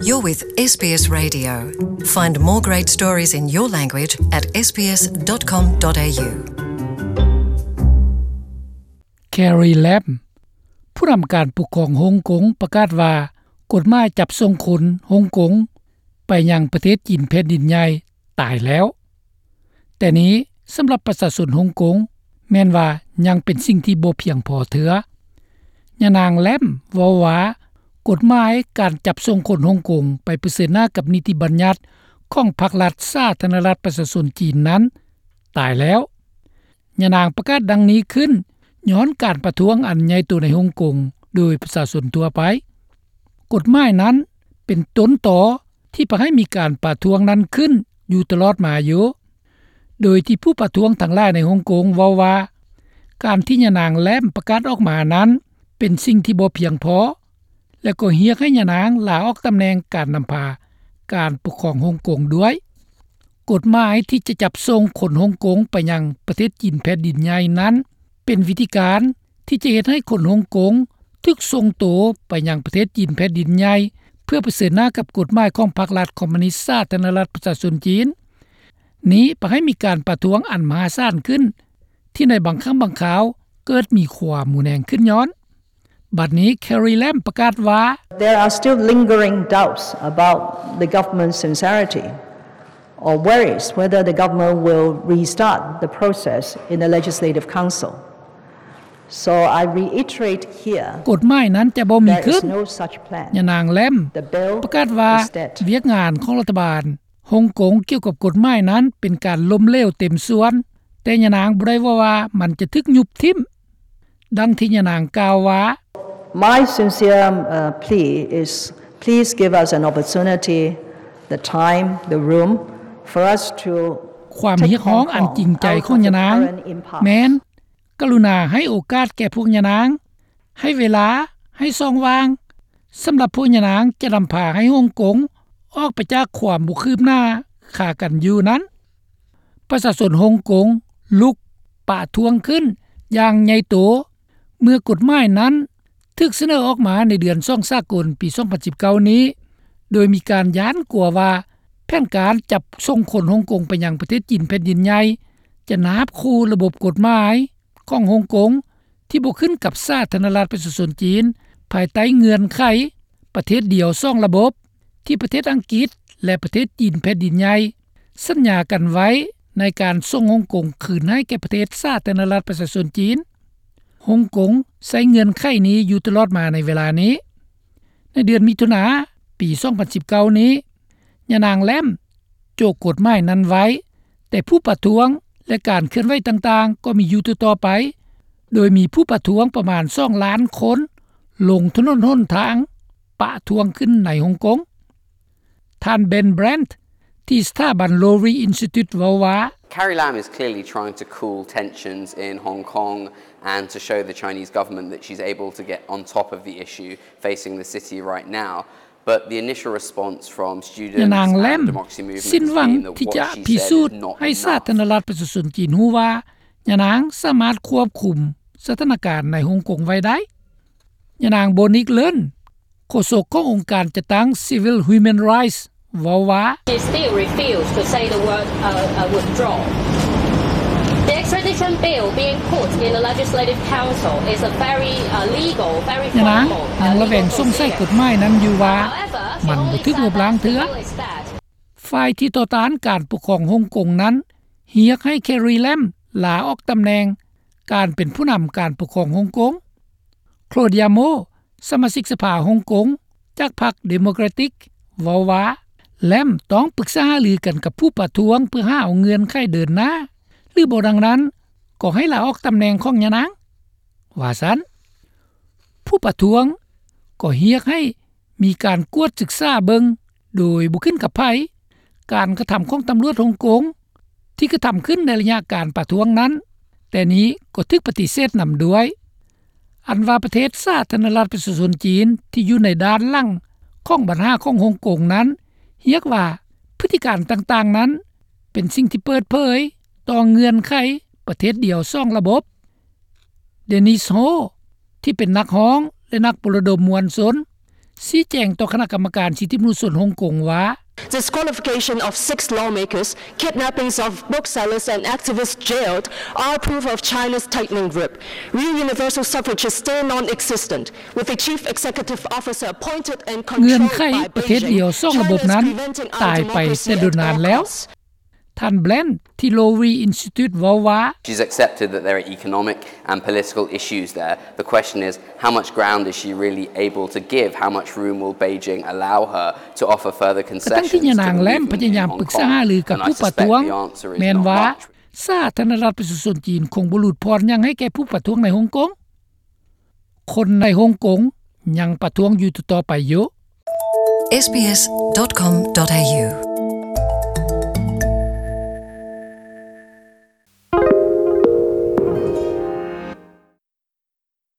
You're with S B S Radio. Find more great stories in your language at S B S dot com dot A U. Carrie Lam ຜູ້ນຳການປົກຄອງຮົງກົງປະກາດວ່າ ກົດໝາຍຈັບສົ່ງຄົນຮົງກົງໄປຍັງປະເທດຈີນແຜ່ນດິນໃຫຍ່ຕາຍແລ້ວ. ແຕ່ນີ້ສຳລັບປະຊາຊົນຮົງກົງແມ່ນວ່າຍັງເປັນສິ່ງທີ່ບໍ່ພຽງພໍເທື່ອ. ຍານາງ Lam ເວົ້າວ່າ ກົດໝາຍການຈັບສົ່ງຄົນຮົງກົງໄປປະເຊີນໜ້າກັບນິຕິບັນຍັດຂອງພັກລັດສາທາລະນະລັດປະຊາຊົນຈີນນັ້ນຕາຍແລ້ວ. ຍານາງປະກາດດັ່ງນີ້ຂຶ້ນຍ້ອນການປະທ້ວງອັນໃຫຍ່ໂຕໃນຮົງກົງໂດຍປະຊາຊົນທົ່ວໄປ. ກົດໝາຍນັ້ນເປັນຕົ້ນຕໍທີ່ພາໃຫ້ມີການປະທ້ວງນັ້ນຂຶ້ນຢູ່ຕະຫຼອດມາຢູ່ ໂດຍທີ່ຜູ້ປະທ້ວງທັງຫຼາຍໃນຮົງກົງເວົ້າວ່າ ການທີ່ຍານາງ Lam ປະກາດອອກມານັ້ນເປັນສິ່ງທີ່ບໍ່ພຽງພໍ ແລະ ກໍຮຽກໃຫ້ຍານາງລາອອກຕຳແໜ່ງການນຳພາການປົກຄອງຮົງກົງດ້ວຍ. ກົດໝາຍທີ່ຈະຈັບສົ່ງຄົນຮົງກົງໄປຍັງປະເທດຈີນແຜ່ນດິນໃຫຍ່ນັ້ນ ເປັນວິທີການທີ່ຈະເຮັດໃຫ້ຄົນຮົງກົງຖືກສົ່ງໂຕໄປຍັງປະເທດຈີນແຜ່ນດິນໃຫຍ່ ເພື່ອປະເຊີນໜ້າກັບກົດໝາຍຂອງພັກລັດຄອມມູນິດສາທາລະນະລັດປະຊາຊົນຈີນ. ນີ້ພາໃຫ້ມີການປະທ້ວງອັນມະຫາສານຂຶ້ນ ທີ່ໃນບາງຄັ້ງບາງຄາວເກີດມີຄວາມຮຸນແຮງຂຶ້ນຍ້ອນ. ບັດນີ້ Carrie Lam ປະກາດວ່າ There are still lingering doubts about the government's sincerity or worries whether the government will restart the process in the Legislative Council. So I reiterate here, ກົດໝາຍນັ້ນຈະບໍ່ມີຂຶ້ນ. ຍານາງ Lam ປະກາດວ່າ ວຽກງານຂອງລັດຖະບານຮົງກົງກ່ຽວກັບກົດໝາຍນັ້ນເປັນການລົ້ມເຫຼວເຕັມສ່ວນ, ແຕ່ຍານາງບໍ່ໄດ້ເວົ້າວ່າມັນຈະຖືກຍຸບຖິ້ມ. ດັ່ງທີ່ຍານາງກ່າວວ່າ My sincere, uh, plea is please give us an opportunity, the time, the room for us to ຄວາມຮຽກຮ້ອງອັນຈິງໃຈຂອງຍານາງແມ່ນ ກະລຸນາໃຫ້ໂອກາດແກ່ພວກຍານາງ, ໃຫ້ເວລາ, ໃຫ້ຊ່ອງວ່າງ ສຳລັບພວກຍານາງຈະນຳພາໃຫ້ຮົງກົງອອກໄປຈາກຄວາມບໍ່ຄືບໜ້າຄາກັນຢູ່ນັ້ນ. ປະຊາຊົນຮົງກົງລຸກປະທ້ວງຂຶ້ນຢ່າງໃຫຍ່ໂຕ ເມື່ອກົດໝາຍນັ້ນຖືກສະເໜີອອກມາໃນເດືອນສອງສາກົນປີສອງພັນສິບເກົ້ານີ້ ໂດຍມີການຢ້ານກົວວ່າແຜນການຈັບສົ່ງຄົນຮົງກົງໄປຍັງປະເທດຈີນແຜ່ນດິນໃຫຍ່ ຈະນາບຂູ່ລະບົບກົດໝາຍຂອງຮົງກົງ ທີ່ບໍ່ຂຶ້ນກັບສາທາລະນະລັດປະຊາຊົນຈີນ ພາຍໃຕ້ເງື່ອນໄຂປະເທດດຽວສອງລະບົບ ທີ່ປະເທດອັງກິດ ແລະ ປະເທດຈີນແຜ່ນດິນໃຫຍ່ ສັນຍາກັນໄວ້ໃນການສົ່ງຮົງກົງຄືນໃຫ້ແກ່ປະເທດສາທາລະນະລັດປະຊາຊົນຈີນ. ຮົງກົງໃຊ້ເງື່ອນໄຂນີ້ຢູ່ຕະຫຼອດມາໃນເວລານີ້. ໃນເດືອນມິຖຸນາປີສອງພັນສິບເກົ້ານີ້ ຍານາງ Lam ໂຈະກົດໝາຍນັ້ນໄວ້, ແຕ່ຜູ້ປະທ້ວງ ແລະ ການເຄື່ອນໄຫວຕ່າງໆກໍມີຢູ່ຕໍ່ໆໄປ, ໂດຍມີຜູ້ປະທ້ວງປະມານສອງລ້ານຄົນລົງຖະໜົນຫົນທາງປະທ້ວງຂຶ້ນໃນຮົງກົງ. ທ່ານ Ben Brandt ທີ່ສະຖາບັນ Lowy Institute ເວົ້າວ່າ Carrie Lam is clearly trying to cool tensions in Hong Kong and to show the Chinese government that she's able to get on top of the issue facing the city right now. But the initial response from students and the democracy movement has been that what she said is not enough. ຍານາງ Lam ສິ້ນຫວັງທີ່ຈະພິສູດໃຫ້ສາທາລະນະລັດປະຊາຊົນຈີນຮູ້ວ່າ ຍານາງສາມາດຄວບຄຸມສະຖານະການໃນຮົງກົງໄວ້ໄດ້. ຍານາງ Monique Leung ໂຄສົກຂອງອົງການຈັດຕັ້ງ Civil Human Rights ເວົ້າວ່າ She still refused to say the word, uh, uh, withdraw. The extradition bill being put in the Legislative Council is a very, uh, legal, very formal, uh, legal procedure. ຍານາງຍັງລະແວງສົງໄສກົດໝາຍນັ້ນຢູ່ວ່າ ມັນບໍ່ຖືກລົບລ້າງເທື່ອ. ຝ່າຍທີ່ຕໍ່ຕ້ານການປົກຄອງຮົງກົງນັ້ນ ຮຽກໃຫ້ Carrie Lam ລາອອກຕຳແໜ່ງການເປັນຜູ້ນຳການປົກຄອງຮົງກົງ. Claudia Mo ສະມາຊິກສະພາຮົງກົງຈາກພັກ Democratic ເວົ້າວ່າ Lam ຕ້ອງປຶກສາຫາລືກັນກັບຜູ້ປະທ້ວງເພື່ອຫາເອົາເງື່ອນໄຂເດີນໜ້າ ຫຼື ບໍ່ດັ່ງນັ້ນກໍໃຫ້ລາອອກຕຳແໜ່ງຂອງຍານາງ ວ່າຊັ້ນ. ຜູ້ປະທ້ວງກໍຮຽກໃຫ້ມີການກວດສຶກສາເບິ່ງໂດຍບໍ່ຂຶ້ນກັບໃຜ ການກະທຳຂອງຕຳຫຼວດຮົງກົງ ທີ່ກະທຳຂຶ້ນໃນໄລຍະການປະທ້ວງນັ້ນ, ແຕ່ນີ້ກໍຖືກປະຕິເສດນຳດ້ວຍ. ອັນວ່າປະເທດສາທາລະນະລັດປະຊາຊົນຈີນທີ່ຢູ່ໃນດ້ານຫຼັງຂອງບັນຫາຂອງຮົງກົງນັ້ນ ຮຽກວ່າພຶດຕິການຕ່າງໆນັ້ນ ເປັນສິ່ງທີ່ເປີດເຜີຍຕໍ່ເງື່ອນໄຂປະເທດດຽວສອງລະບົບ. Denise Ho ທີ່ເປັນນັກຮ້ອງ ແລະ ນັກປົນລະດົມມວນຊົນ ຊີ້ແຈງຕໍ່ຄະນະກຳມະການສິດທິມະນຸດຊົນຮົງກົງວ່າ Disqualification of six lawmakers, kidnappings of booksellers and activists jailed are proof of China's tightening grip. Real universal suffrage is still non-existent, with the chief executive officer appointed and controlled by Beijing. ເງື່ອນໄຂປະເທດດຽວສອງລະບົບນັ້ນ China is preventing our ຕາຍໄປແຕ່ດົນນານແລ້ວ. ທ່ານ Blanche ທີ່ Lowy Institute ເວົ້າວ່າ She's accepted that there are economic and political issues there. The question is, how much ground is she really able to give? How much room will Beijing allow her to offer further concessions to the movement in Hong Kong? ກະທັງທີ່ຍານາງແລ້ວພະຍາຍາມປຶກສາຫາລືກັບຜູ້ປະທ້ວງ ແມ່ນວ່າ ສາທາລະນະລັດປະຊາຊົນຈີນຄົງບໍ່ຫຼຸດຜ່ອນຫຍັງໃຫ້ແກ່ຜູ້ປະທ້ວງໃນຮົງກົງ. ຄົນໃນຮົງກົງຍັງປະທ້ວງຢູ່ຕໍ່ໆໄປຢູ່. sbs.com.au